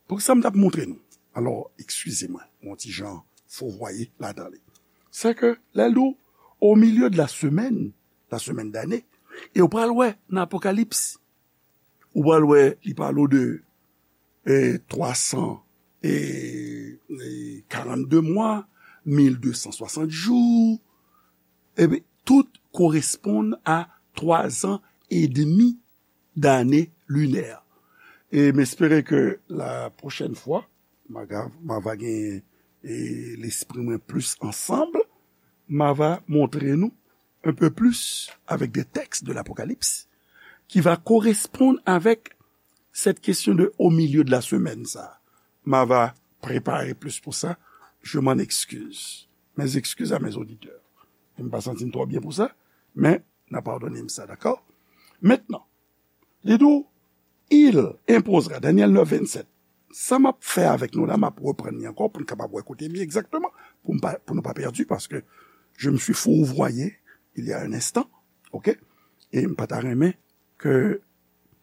pou sa m t ap montre nou. Alò, eskize mwen, yon ti jan fourvoyé ladan li. Se ke lè l di w, au milieu de la semaine, la semaine d'année, e w pral wè nan Apokalips, ou pral wè li pale w de, e, twa san e, e, karannde mwa, mil de san swasant jou, ebyen, tout koresponn a twa zan edmi d'ane linè. E m espere ke la pwochèn fwa, m a, m a va gen, e, lespri mwen plis ansanm, m a va montre nou un peu plus avec des textes de l'Apocalypse qui va correspondre avec cette question de au milieu de la semaine, sa. M a va prepare plis pou sa. Je m'en excuse. Mes excuses à mes auditeurs. M pa santi m twò byen pou sa, men n a padone m sa, dakò? Mentnan, li di w, il imposera, Daniel neuf, vingt-sept. Sa m ap fè avèk nou la, m ap reprann li ankò pou n kapab wè kote m ye egzakteman, pou m pa, pou nou pa pèdi, paske je me suis fourvoyé il y a un instant, ok? E m pa ta renmen ke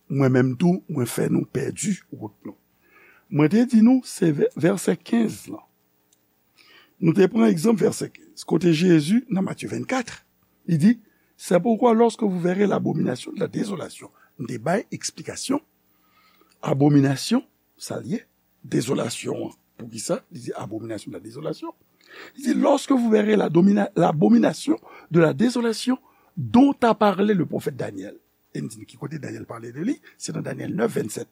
mwen menm tou, mwen fè nou pèdi wout nou. Mwen te di nou, se vè-, vèsè kenz lan. Nou te pran egzanp vèsè kenz, kote Jezi, nan Matye vennkat, li di, c'est pourquoi lorsque vous verrez l'abomination de la désolation, m te bay eksplikasyon, abominasyon, sa l ye, dezolasyon an. Poukisa? Li di abomination de la désolation. Li di, lorsque vous verrez la domina-, l'abomination de la désolation dont a parlé le prophète Daniel. E m di n ki kote Danyèl pale de li, se nan Danyèl neuf, vingt-sept.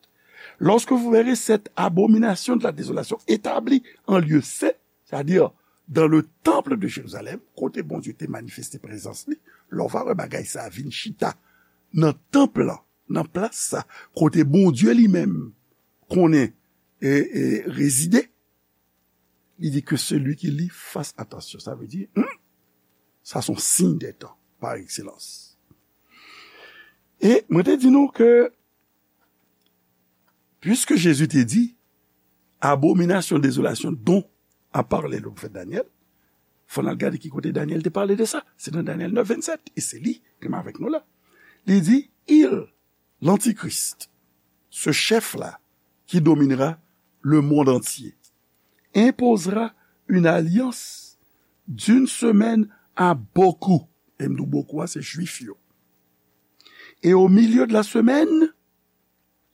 Lorsque vous verrez cette abomination de la désolation établie en lieu saint, c'est-à-dire dans le temple de Jérusalem, kote Bondye te manifeste prezans li, lè w va wè bagay sa a vin chita nan tanp lan, nan plas sa, kote Bondye li menm konnen e, e rezide, li di que celui qui lit fasse attention. Sa vle di, hmm, sa se yon siy dè tan, par excellence. E mwen te di nou ke, puisque Jésus te di, abomination, désolation dont a parlé le prophète Daniel, fò n al gade ki kote Danyèl te pale de sa. Se nan Danyèl neuf, vingt-sept. E se li ki menm avèk nou la. Li di, il, l'Antichrist, ce chef-là qui dominera le monde entier, imposera une alliance d'une semaine à beaucoup. E m di w beaucoup a, se Jwif yo. Et au milieu de la semaine,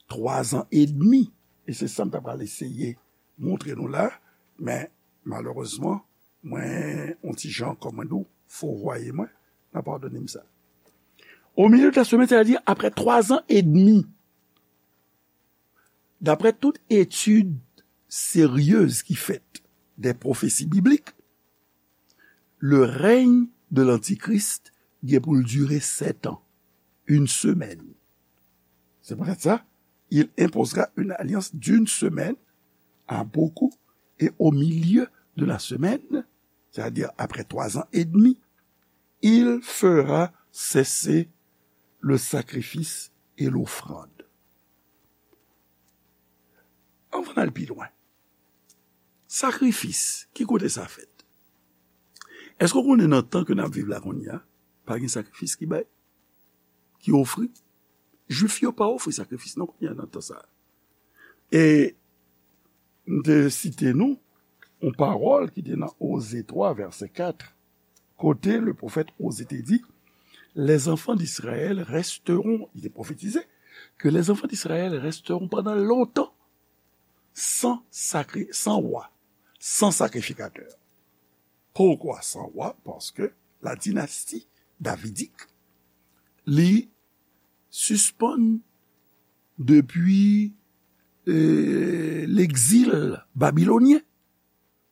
twa zan edmi. E se sa m ta pral eseye montre nou la, men malerezman, mwen, yon ti jan, kòm mwen di w, fourvoyé mwen, n a padone m sa. Au milieu de la semaine, c'est-à-dire après trois ans et demi. D'après toute étude sérieuse qui fait des prophéties bibliques, le règne de l'Antichrist gen pou l dire sèt an, une semaine. C'est peut-être ça. Il imposera une alliance d'une semaine à beaucoup, et au milieu de la semaine, c'est-à-dire après trois ans et demi, il fera cesser le sacrifice et l'offrande. Anvan n al pi lwen, sakrifis, ki kote sa fèt? Èske w konnen nan tan ke n ap viv la kounye a, pa gen sakrifis ki bay, ki ofri? Jwif yo pa ofri sakrifis non kounye a nan tan sa a. E m te site nou yon pawòl ki te nan Oze twa, vèsè kat, kote le pwofèt Oze te di, les enfants d'Israël resteront, li te pwofetize, que les enfants d'Israël resteront pendant longtemps sans sacré, sans roi, sans sacrificateur. Pourquoi sans roi? Parce que la dynastie davidique, li sispann depi, euh, l'exil babylonien.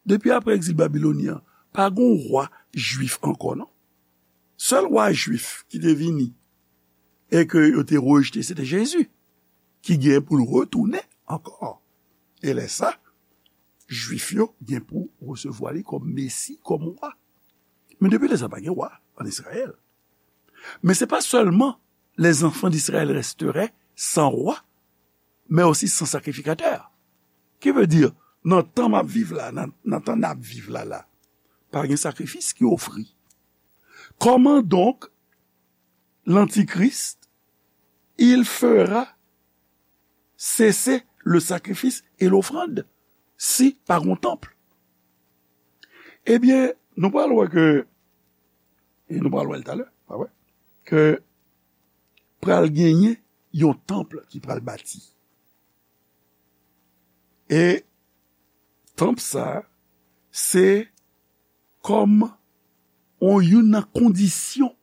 Depi apre egzil babilonyen an, pa gen yon wa jwif ankò, non. Sèl wa jwif ki te vini e ke yo te rejte, se te Jezi, ki gen pou l retounen ankò. E lè sa, jwif yo gen pou resevwa li kòm Mesi, kòm wa. Men depi lè sa, pa gen wa ann Izrayèl. Men se pa sèlman les enfants d'Israël resteraient sans roi, mais aussi sans sacrificateur. Ki vle di, nan tan m ap viv la, nan, nan tan n ap viv la, la, pa gen sakrifis ki ofri. Comment donc l'Antichrist, il fera cesser le sacrifice et l'offrande si pa gen yon tanp? Ebyen, nou pral wè ke, e nou pral wè l talè, pa vre? Ke pral genyen yon tanp ki pral bati. E tanp sa, se kòm yon, youn nan kondisyon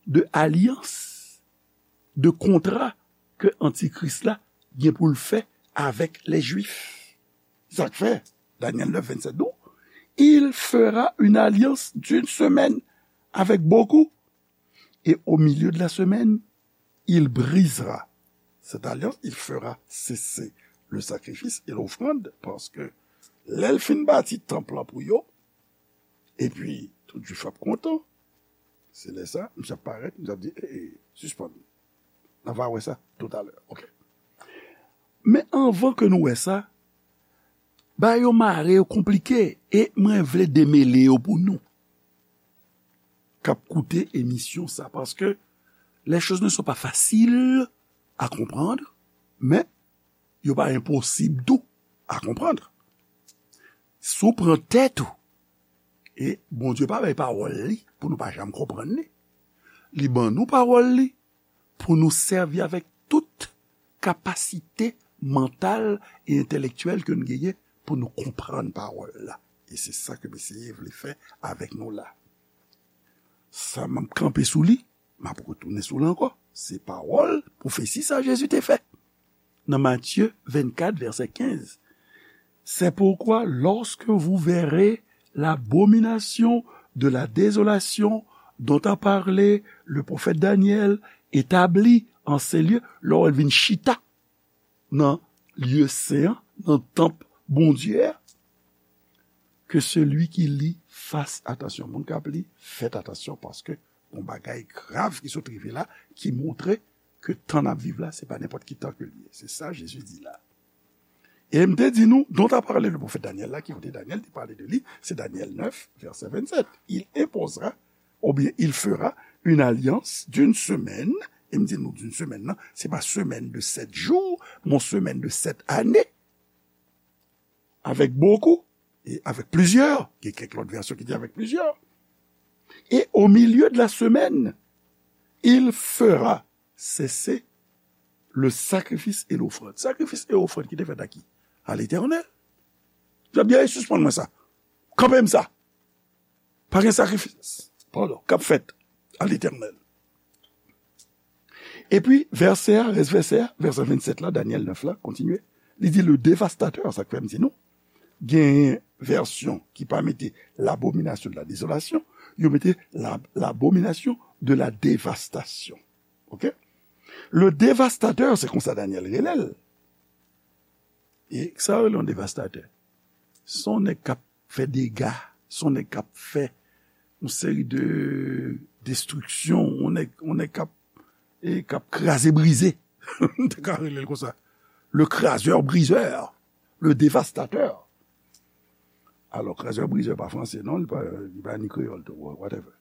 de alyans, de kontra ke Antikris la gen pou l fè avèk lè Jwif. Sa k fè, Danyèl nèf venntsèt di w, il fera une alliance d'une semaine avec beaucoup, et au milieu de la semaine, il brisera cette alliance, il fera cesser le sacrifice et l'offrande, paske lè l fin bati tanp lan pou yo, epi tout Jwif ap kontan, se lè sa, misye ap parèt, misye ap di, e, e, sispann. N a va wè sa toutalè. Ok. Men anvan ke nou wè sa, bagay yo mare, yo konplike, e mwen vle demele yo pou nou k ap koute emisyon sa, paske les choses ne sont pas faciles à comprendre, men yo pa enposib tou à comprendre. Si w pran tèt ou, e Bondye pa bay pawòl li pou nou pa janm konprann li. Li ban nou pawòl li pou nou sèvi avèk tout kapasite mantal e entèlektyèl ke nou genyen pou nou konprann pawòl la. E se sa ke Mesye vle fè avèk nou la. Sa m ap kanpe sou li, m ap retounen sou li ankò. Se pawòl, pwofesi sa Jezi te fè. Nan Matye vennkat, vèsè kenz. C'est pourquoi, lorsque vous verrez l'abomination de la désolation dont a parlé le prophète Daniel établie en ces lieux, lè w vin chita nan lye sen an, nan tanp Bondye a, que celui qui lit fasse attention. Moun k ap li, fèt atansyon, paske yon bagay grav ki sot rive la, ki montre ke tan n ap viv la, se pa nenpòt ki tan ke l ye. Se sa Jezi di la. E m te di nou, dont a parlé le prophète Daniel la, ki kote Danyèl te pale de li, se Danyèl nèf, vèsè venntsèt. Il imposera, oubyen il fera une alliance d'une semaine, e m di nou d'une semaine, non, se pa semaine de sept jours, men semaine de sept années, avec beaucoup, et avec plusieurs, gen kèk lòt vèsyon ki di avec plusieurs. Et au milieu de la semaine, il fera cesser le sacrifice et l'offrande. Sakrifis e ofrann ki te fèt a ki? A Letènèl. L ap di, "Ey, sispann mwen sa. Kanpe m sa. Pa gen sakrifis, padon, k ap fèt a Letènèl." Epi, vèsè a, rès vèsè a, vèsè venntsèt la, Danyèl nèf la, kontinye. Li di, le dévastateur, sa k fè m di nou, gen vèsyon ki pa mete l'abomination de la désolation, yo mete la, l'abomination de la dévastation. Ok? Le dévastateur, se konsa Danyèl rele l. E sa yo rele yon devastatè? Se yon nèg k ap fè dega, se yon nèg k ap fè yon seri de destriksyon, yon nèg, yon nèg k ap, e k ap kraze brize. M te ka rele l konsa. Le krasè brizè, le devastatè. Alò, krasè brizè pa franse, non, li pa, li pa ni kreyòl tou, whatever.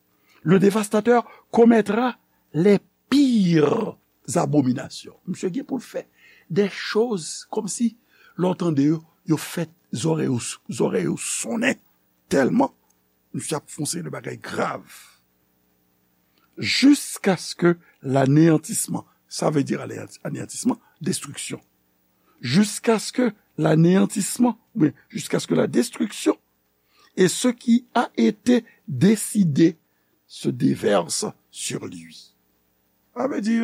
Le dévastateur commettra les pires abominasyon. Misye gen pou l fè de choz kòmsi lè w tande yo, yo fè zòrèy ou, zòrèy ou sonnen tèlman misye ap fè yon seri de bagay grav. Jiskaske l'anéantissement, ça veut dire anéantisman, destriksyon. Jusqu'à ce que l'anéantissement, oui, jusqu'à ce que la destruction et ce qui a été décidé se déverse sur lui. Sa vle di,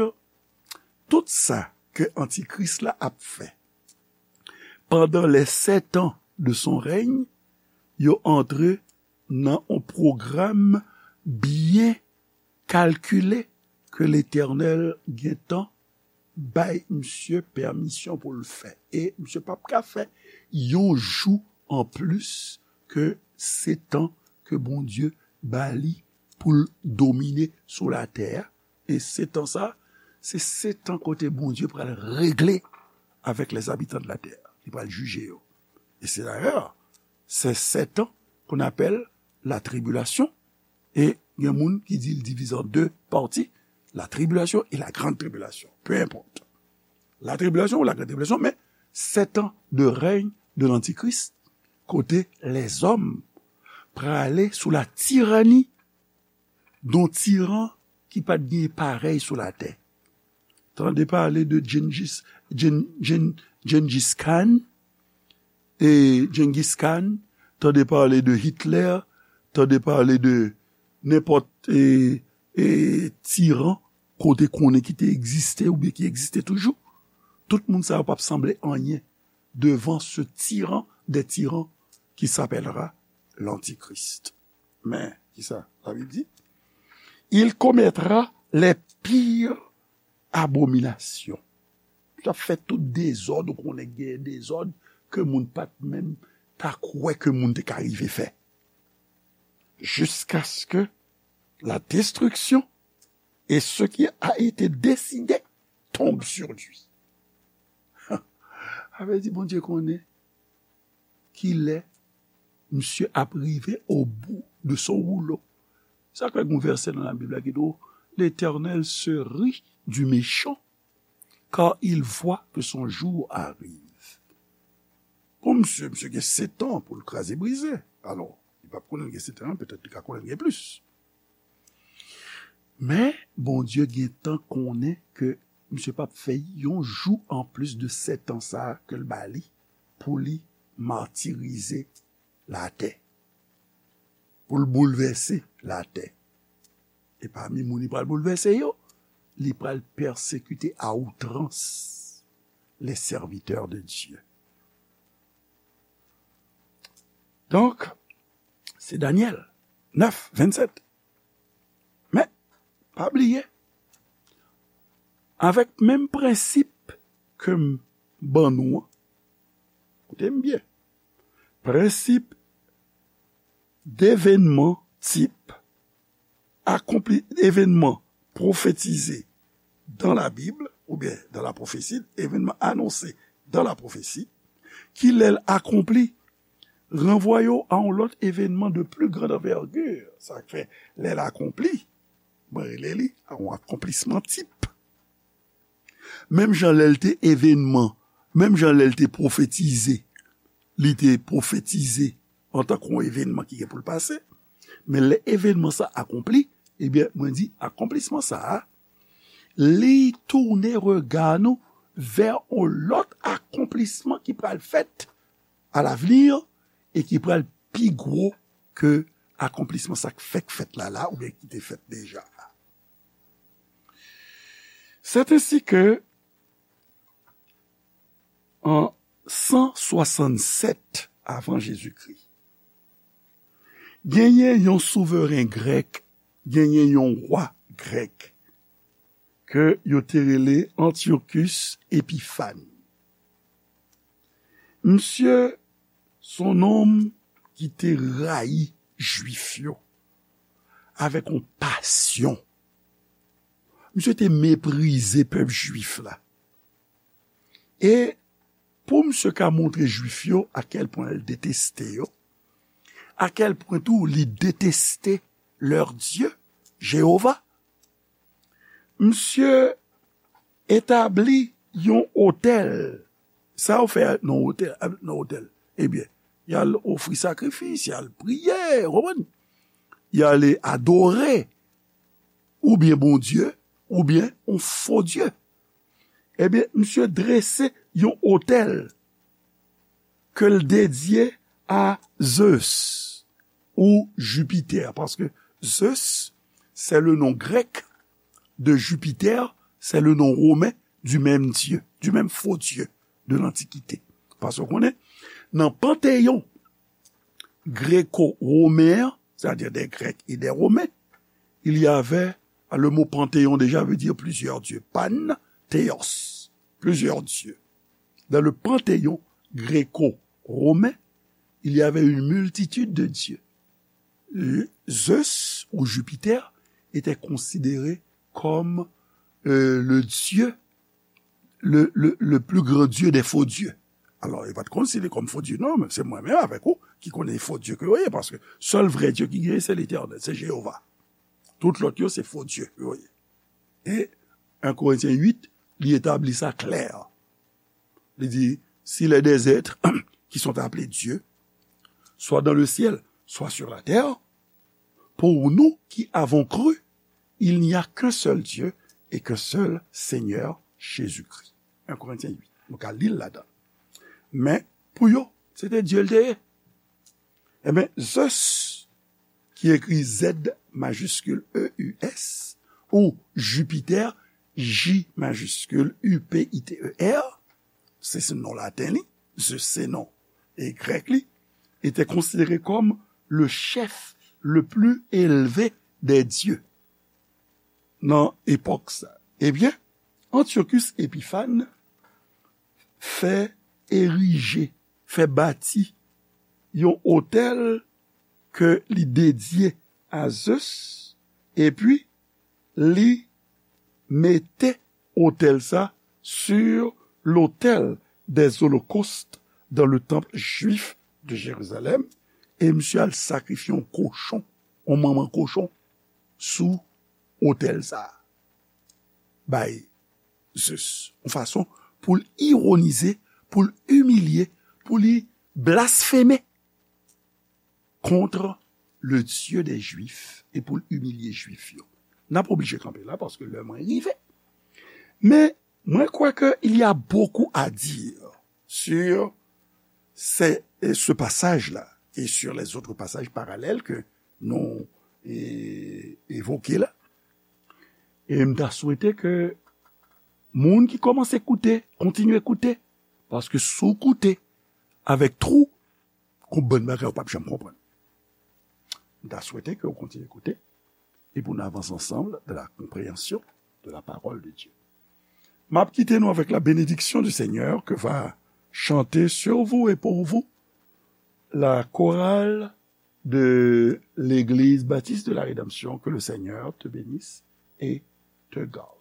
tout sa ke Antikris la ap fè pandan les sept ans de son règne, yo antre nan yon pwogram byen kalkile ke Letènèl gentan bay misye pèmisyon pou l fè. E misye p ap ka fè yon jou anplis ke setan ke Bondye ba li pou l domine sou latè a. E setan sa, se setan kote Bondye pral regle avec les habitants de la terre. Li pral jije yo. E se dayè, se setan qu'on appelle la tribulation. E gen moun ki di l divize an de pati, la tribulation et la grande tribulation. Peu importe. La tribulation ou la grande tribulation, men setan de règne de l'Antichrist, kote lèzòm prale sou la tirani d'un tiran ki pa t gen parèy sou latè. Tande pale de Gengis, Gen, Gen, Gengis Khan, e Genghis Khan, tande pale de Hitler, tande pale de nenpòt e, e, tiran kote konnen ki te egziste oubyen ki egziste toujou. Tout moun sa yo p ap sanble anyen devan ce tyran des tyrans qui s'appellera l'Antichrist. Men, ki sa Labib di? Il commettra les pires abominations. L ap fè tout dezòd, ou konnen gen dezòd ke moun pa t menm ta kwè ke moun te ka rive fè. Jusqu'à ce que la destruction et ce qui a été décidé tombe sur lui. Sa vle di Bondye konnen kilè misye ap rive au bout de son rouleau. Sa k fè gen yon vèsè nan Labib la ki di w, L'Éternel se rit du méchant, car il voit que son jour arrive. Pou misye, misye gen setan pou l kraze brize. Alò, li p ap konnen l gen setan an, petèt li ka konnen l gen plis. Men, Bondye gentan konnen ke misye p ap fè yon jou anplis de setan sa a ke l ba li pou li matirize latè, pou l boulvèse latè. E pami moun li pral boulvèse yo, li pral pèsekite a outrans les serviteurs de Dieu. Donk, se Danyèl nèf, vennsèt. Men, pa bliye, avèk menm prensip ke m ban nou an, koute m byen, prensip devenman tip, akonpli, evenman pwofetize dans la Bible, oubyen dans la prophétie, événement annoncé dans la prophétie, ki lè l akonpli, ranvwaye w a yon lòt evenman de plus grande envergure. Sa k fè, lè l akonpli, mwen rele li a yon akonplisman tip. Menm jan lè l te evenman, menm jan lè l te pwofetize, li te pwofetize antanke yon evenman ki gen pou l pase, men lè evenman sa akonpli, ebyen, mwen di, akonplisman sa a, li tounen rega nou vè yon lòt akonplisman ki pral fèt alavni e ki pral pi gwo ke akonplisman sa k fèk fèt la la oubyen ki te fèt deja. C'est ainsi que, an san swasannsèt avan Jezikri, genyen yon souveren grèk, genyen yon wa grèk ke yo te rele Antiochus Epiphan. Misye se yon nonm ki te rayi Jwif yo avèk yon pasyon. Misye te meprize pèp Jwif la. E pou misye ka montre Jwif yo a kèl pwen l deteste yo, a kèl pwen tou li deteste leur Dieu, Jewova, misye etabli yon otèl. Sa yo fè nan otèl, nan otèl? Ebyen, y al ofri sakrifis, y al priye, w konprann? Y ale adore, oubyen Bondye, oubyen yon fo dye. Ebyen, misye drese yon otèl ke l dedye a Zeus ou Jupiter, paske Zeus, c'est le nom grec de Jupiter, c'est le nom romain du même dieu, du même faux dieu de l'Antiquité. Paske w konnen, nan panteyon gréco-romain, c'est-à-dire des Grecs et des Romains, il y avait, le mot panthéon déjà veut dire plusieurs dieux, pan, théos, plusieurs dieux. Dans le panthéon gréco-romain, il y avait une multitude de dieux. Zeus ou Jupiter était considéré comme euh, le dieu, le, le, le plus grand dieu des faux dieux. Alò, yo pa t konsidere kòm fo dye, non, men se mwen menm avèk ou ki konnen fo dye ke yo ye, paske sèl vrè Dye ki genyen, se Letènèl, se Jewova. Tout lòt yo, se fo dye ke yo ye. E en Korentyen uit, li etabli sa klè. Li di, s'il est des êtres qui sont appelés Dieu, soit dans le ciel, soit sur la terre, pour nous qui avons cru, il n'y a qu'un seul Dieu et qu'un seul Seigneur, Jésus-Christ. En Korentyen uit. Nou ka li l ladan. Men, pou yo, se te Dye l te ye. Ebyen, Zeus, ki ekri Z majiskil E U S, ou Jupiter, J majiskil U P I T E R, se, se non laten li, Zeus se non e grèk li, était considéré comme le chef le plus élevé des dieux nan epòk sa. Ebyen, Antiochus Epiphan fè erije, fè bati yon otèl ke li dedye a Zeus, epi li mete otèl sa sur l'autel des holocaustes dans le temple juif de Jérusalem, e misye al sakrifye yon kochon, yon manman kochon, sou otèl sa a, bay Zeus, yon fason pou l ironize, pou l imilye, pou li blasfeme contre le Dieu des Juifs e pou l imilye Jwif yo. N ap oblije kanpe la paske lè mwen rive. Men, mwen kwè ke il y a beaucoup à dire sur ce, ce passage-là et sur les autres passages parallèles que nou e, evoke la. E m ta swete ke moun ki kòmanse koute, kontinye koute, paske si w koute avèk twou, gon bann bagay ou p ap janm konprann. M ta swete ke w kontinye koute, et pour nous avancer ensemble dans la compréhension de la parole de Dieu. M ap kite nou avec la bénédiction du Seigneur que va chanter sur vous et pour vous la chorale de l'Église Baptiste de la Rédemption. Que le Seigneur te bénisse et te garde.